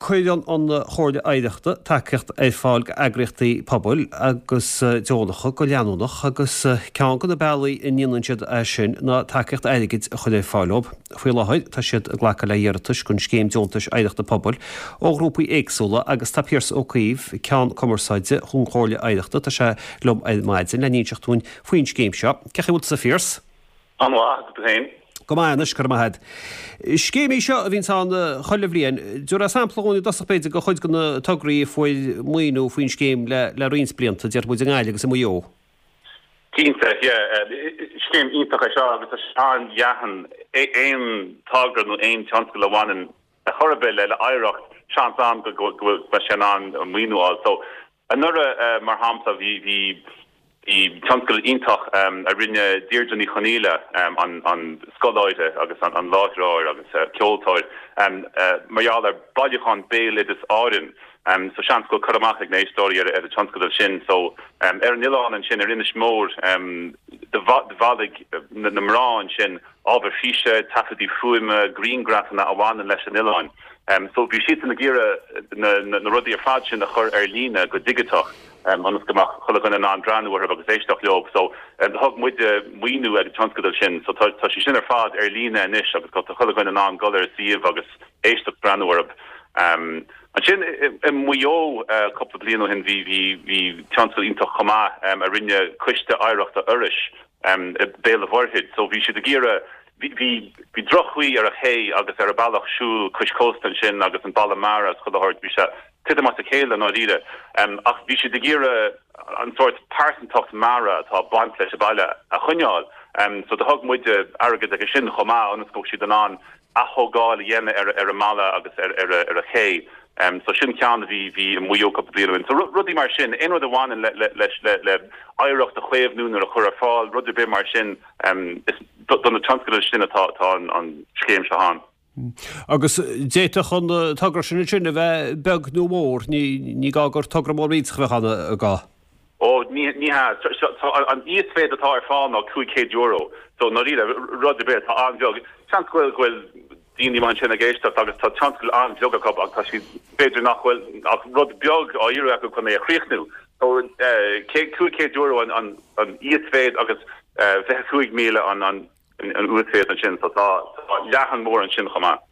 Cuireann an Chomhairle Oidhreachta tacaíocht ar fáil d'eagraíochtaí pobail agus deonacha go leanúnach agus ceann de na bealaí a ndéanann siad é sin ná tacaíocht airgid a chur ar fáil dóibh. Faoi láthair tá siad ag glacadh le hiarratais don Scéim Deontais Oidhreachta Pobail ó ghrúpaí éagsúla agus tá Pearse Ó Caoimh, Ceann Cumarsáide don Chomhairle Oidhreachta, tá sé liom ar maidin le n-inseacht dúinn faoin scéim seo. Cén chaoi a bhfuil tusa a Phearse? An-mhaith, agus tú féin? Go maith anois, go raibh maith agat. Scéim í seo a bhíonns ann chuile bhliain. Tabhair sampla dhúinn i dtosach b'fhéidir de chuid de na tograí a fuair maoiniú faoin scéim le roinnt blianta, déarfaidh muid i nGaillimh agus i Maigh Eo. Cinnte, yeah. Scéim iontach é seo agus tá sé an-leathan. Aon togra nó aon tionscal a bhaineann ar chor ar bith le hoidhreacht, seans ann go mbeidh sé in ann maoiniú a fháil. So, Anuraidh, mar shampla, bhí tionscadal iontach a rinne Deirdre Ní Chonaola, an scoláire agus an láithreoir agus ceoltóir, mar gheall ar bailiúchán Béaloideas Árann. So seans go bhfuil cur amach ag na héisteoirí ar an tionscadal sin. So ar an oileán ansin, ar Inis Mór, do bhailigh na mná ansin ábhar físe, taifeadtaí fuaime, griangrafanna a bhaineann leis an oileán. So bhí siadsan ag iarraidh na rudaí ar fad sin a chur ar líne go digiteach ionas go mbeadh chuile dhuine in ann breathnú orthu agus éisteacht leo. So thug muide maoiniú ag an tionscadal sin. So tá sé sin ar fad ar líne anois agus tá chuile dhuine in ann dul ar an suíomh agus éisteacht breathnú orthu. Ansin i Maigh Eo cúpla bliain ó shin bhí bhí tionscadal iontach chomh maith a rinne Coiste Oidhreachta Iorrais i Béal an Mhuirthead. So bhí siad ag iarraidh Bhí droch-chaoi ar an ché agus ar an bealach siúil cois cósta ansin agus an balla mara is chuile shórt, bhí sé titim as a chéile i ndáiríre. Ach bhí siad ag iarraidh an sórt pearsantacht mara atá ag baint leis an baile a choinneáil. So do thug muide airgead aige sin chomh maith ionas go mbeadh siad in ann ath-thógáil a dhéanamh ar an mballa agus ar an ché. So sin ceann a bhí bhí i Maigh Eo cúpla bliain ó shin. So rudaí mar sin, aon rud a bhaineann le le le oidhreacht a chaomhnú nó a chur ar fáil, rud ar bith mar sin, Is do na tionscadail sin atá an scéim seo ann. Agus d'fhéadfadh an togra sin ansin a bheith beag nó mór, ní gá gur togra mór millteach a bheadh ann, an gá? Ó, ní hea. An íosmhéid atá ar fáil ná €500. So, i ndáiríre, rud ar bith atá an-bheag. Seans go bhfuil daoine amuigh ansin ag éisteacht agus tá tionscal an-bheag acu ach tá siad, b'fhéidir nach bhfuil ach rud beag á iarraidh acu chun é a chríochnú. So, €500 an íosmhéid agus 25,000 an uasmhéid ansin. So tá leathan mór ansin chomh maith.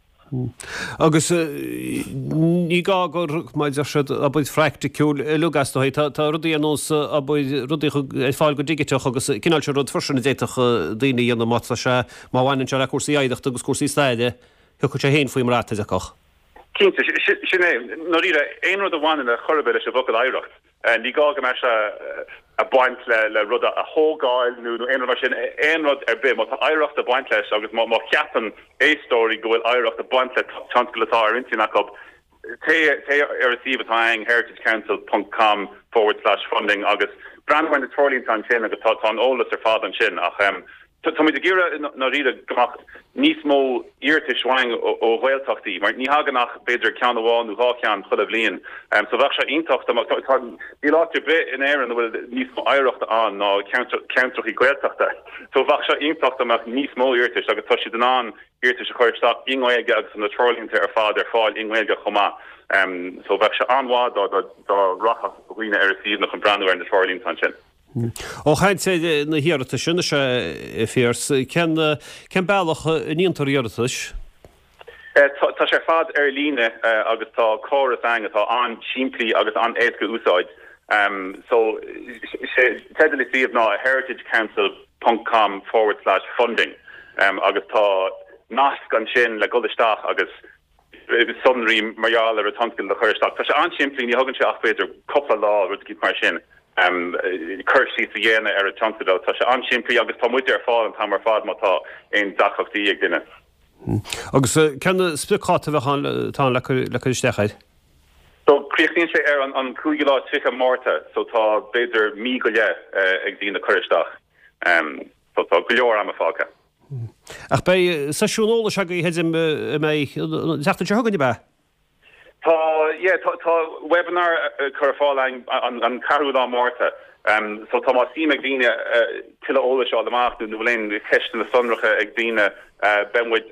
Agus ní gá gur, mar a deir siad, obair phraiticiúil uilig as dóigh. Tá rudaí ar nós obair, rudaí ar fáil go digiteach agus cineál sin rud freisin a d'fhéadfadh daoine a dhéanamh má tá sé, má bhaineann sé le cúrsaí oidhreachta agus cúrsaí staire, thiocfadh sé féin faoin mbrat, a deirfeá. Cinnte, sin é. I ndáiríre, aon rud a bhaineann ar chor ar bith leis an bhfocal oidhreacht, ní gá go mbeadh sé ag baint le rud a thógáil nó aon rud mar sin, aon rud ar bith, má tá oidhreacht ag baint leis agus má cheapann éisteoirí go bhfuil oidhreacht ag baint le tionscal atá ar intinn acu, téigh ar an suíomh atá againn, heritagecouncil ponc com forward slash funding agus breathnaigh ar na treoirlínte ansin agus tá an eolas ar fad ansin. Ach Táimid ag iarraidh i ndáiríre go mbeadh níos mó iarratais uainn ó Ghaeltachtaí mar ní thagann ach b'fhéidir ceann amháin nó dhá cheann chuile bhliain. So bheadh sé iontach dá mbeadh, tá, níl áit ar bith in Éirinn a bhfuil níos mó oidhreachta ann ná ceantrachaí Gaeltachta. So bheadh sé iontach dá mbeadh níos mó iarratais agus tá siad in ann iarratais a chur isteach i nGaeilge agus tá na treoirlínte ar fad ar fáil i nGaeilge chomh maith. So bheadh sé an-mhaith dá dá rachadh dhaoine ar an suíomh chun breathnú ar na treoirlínte ansin. Ó chaint ar na hiarratais anois, a Phearse, cén bealach a ndéantar iarratais? Tá sé ar fad ar líne agus tá córas againn atá an-simplí agus an-éasca a úsáid. So, sé teideal an suímh ná heritagecouncil ponc com forward slash funding agus tá nasc ansin le dul isteach agus sonraí mar gheall ar an tionscadal a chur isteach. Tá sé an-simplí, ní thugann sé ach b'fhéidir cúpla lá, rud eicínt mar sin, cur síos a dhéanamh ar an tionscadal. Tá sé an-simplí agus tá muide ar fáil an t-am ar fad má tá aon deacrachtaí ag duine. Agus cén spriocdháta a bheadh ann, atá ann le cur isteach air? So críochnaíonn sé ar an cúigiú lá is 30 Márta, so tá b'fhéidir mí go leith ag daoine cur isteach. So tá go leor ama fágtha. Ach beidh seisiún eolais agaibh, creidim, a mbeidh an tseachtain seo chugainn, ab ea? Tá, yeah, tá, tá webinar curtha ar fáil againn an ceathrú lá Márta. So tá más suim ag daoine tuilleadh eolais a fháil amach nó bhfuil aon cheisteanna sonracha ag daoine, beidh muid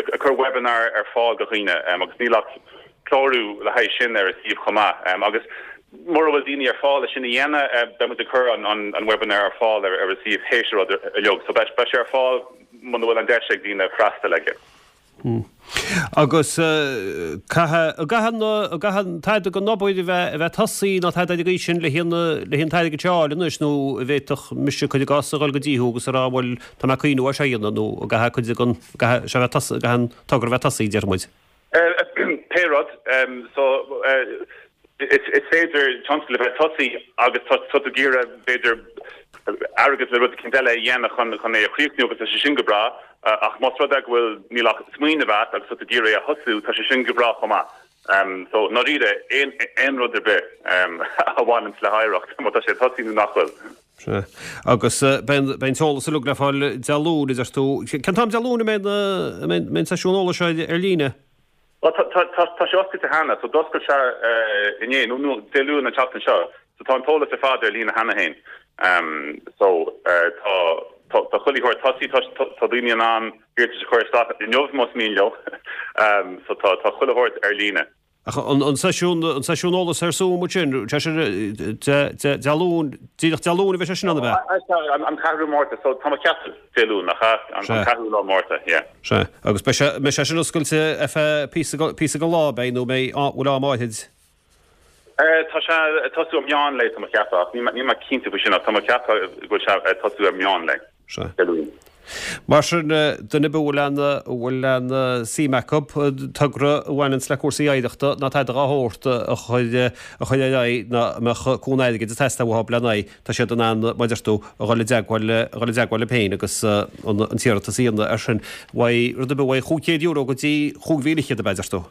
ag cur webinar ar fáil do dhaoine agus níl ach. clárú le haghaidh sin ar an suíomh chomh maith. Agus mura bhfuil daoine ar fáil le sin a dhéanamh, beidh muid ag cur an webinar ar fáil ar an suíomh théis an rud uilig. So beidh sé ar fáil muna bhfuil an deis ag daoine freastal aige. Agus caithfidh, an gcaithfidh an tada den obair a bheith, a bheith tosaithe nó tada ar an gcaoi sin le haghaidh an, le haghaidh an t-airgead seo a fháil anois nó an bhféadfadh mise cuir i gcás a dhul go dtí thú agus a rá bhuel tá mé ag cuimhniú ar seo a dhéanamh nó an gcaithfidh cuid den, caithfidh sé a bheith tosaithe, caithfidh an togra a bheith tosaithe déarfaidh muid. Pé rud, so is féidir tionscal a bheith tosaithe agus tá tú ag iarraidh b'fhéidir airgead le rud eicínt eile a dhéanamh chun chun é a chríochnú agus tá sé sin go breá ach más rud é go bhfuil níl ach smaoineamh agat agus tá tú ag iarraidh é a thosú tá sé sin go breá chomh maith. So i ndáiríre aon aon rud ar bith a bhaineanns le hoidhreacht má tá sé tosaithe nó nach bhfuil. Sea. Agus beidh an t-eolas uilig le fáil Dé Luain, a deir tú. Cén t-am Dé Luain a mbeidh an seisiún eolais seo ar líne? Bhuel, tá sé oscailte cheana, so d'oscail sé inné, nó Dé Luain an tseachtain seo, so tá an t-eolas ar fad ar líne cheana féin. So tá tá chuile shórt tosaithe, tá daoine in ann iarratais a chur isteach inniu más mian leo, so tá chuile shórt ar líne. Ach an seisiún, an seisiún eolais ar Zoom ansin, sé sin Dé Luain, díreach Dé Luain a bheidh sé sin ann, ab ea? An ceathrú Márta, so tá mé ag ceapadh Dé Luain, nach ea? An ceathrú lá Márta, yeah. Sea. Agus beidh sé, mbeidh sé sin oscailte ar feadh píosa, píosa den lá, beidh, nó mbeidh, bhfuil am áithrid? Tá sé ag tosú ar meán lae, tá mé ag ceapadh, ach níl mé cinnte faoi sin, ach tá mé ag ceapadh go bhfuil sé ag tosú ar meán lae. Sea. Dé Luain. Mar sin, duine ar bith a bhfuil aon, a bhfuil aon suim acu, togra a bhaineanns le cúrsaí oidhreachta ná tada dá shórt a chur, a chur ar aghaidh ná a mbeadh cúnamh airgid ag teastáil uathu lena aghaidh, tá siad in ann, mar a deir tú, a dhul i dteagmháil, a dhul i dteagmháil libh féin agus an, an t-iarratas a dhéanamh air sin. Uaidh, rud ar bith uaidh €500 go dtí 5,100 ab ea, deir tú?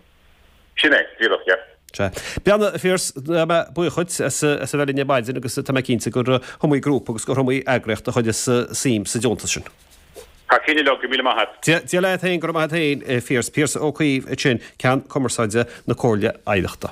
Sin é, díreach, yeah. Sea. Beannacht a Phiarais, tá mé buíoch dhuit as a bheith linn ar maidin agus tá mé cinnte gur iomaí grúpa agus gur iomaí eagraíocht a chuirfeas suim sa deontas sin. Thar cionn uilig, go raibh míle maith a't. Dia leat féin, go raibh maith a't féin, a Phiarais. Piaras Ó Caoimh ansin, Ceann Cumarsáide na Comhairle Oidhreachta.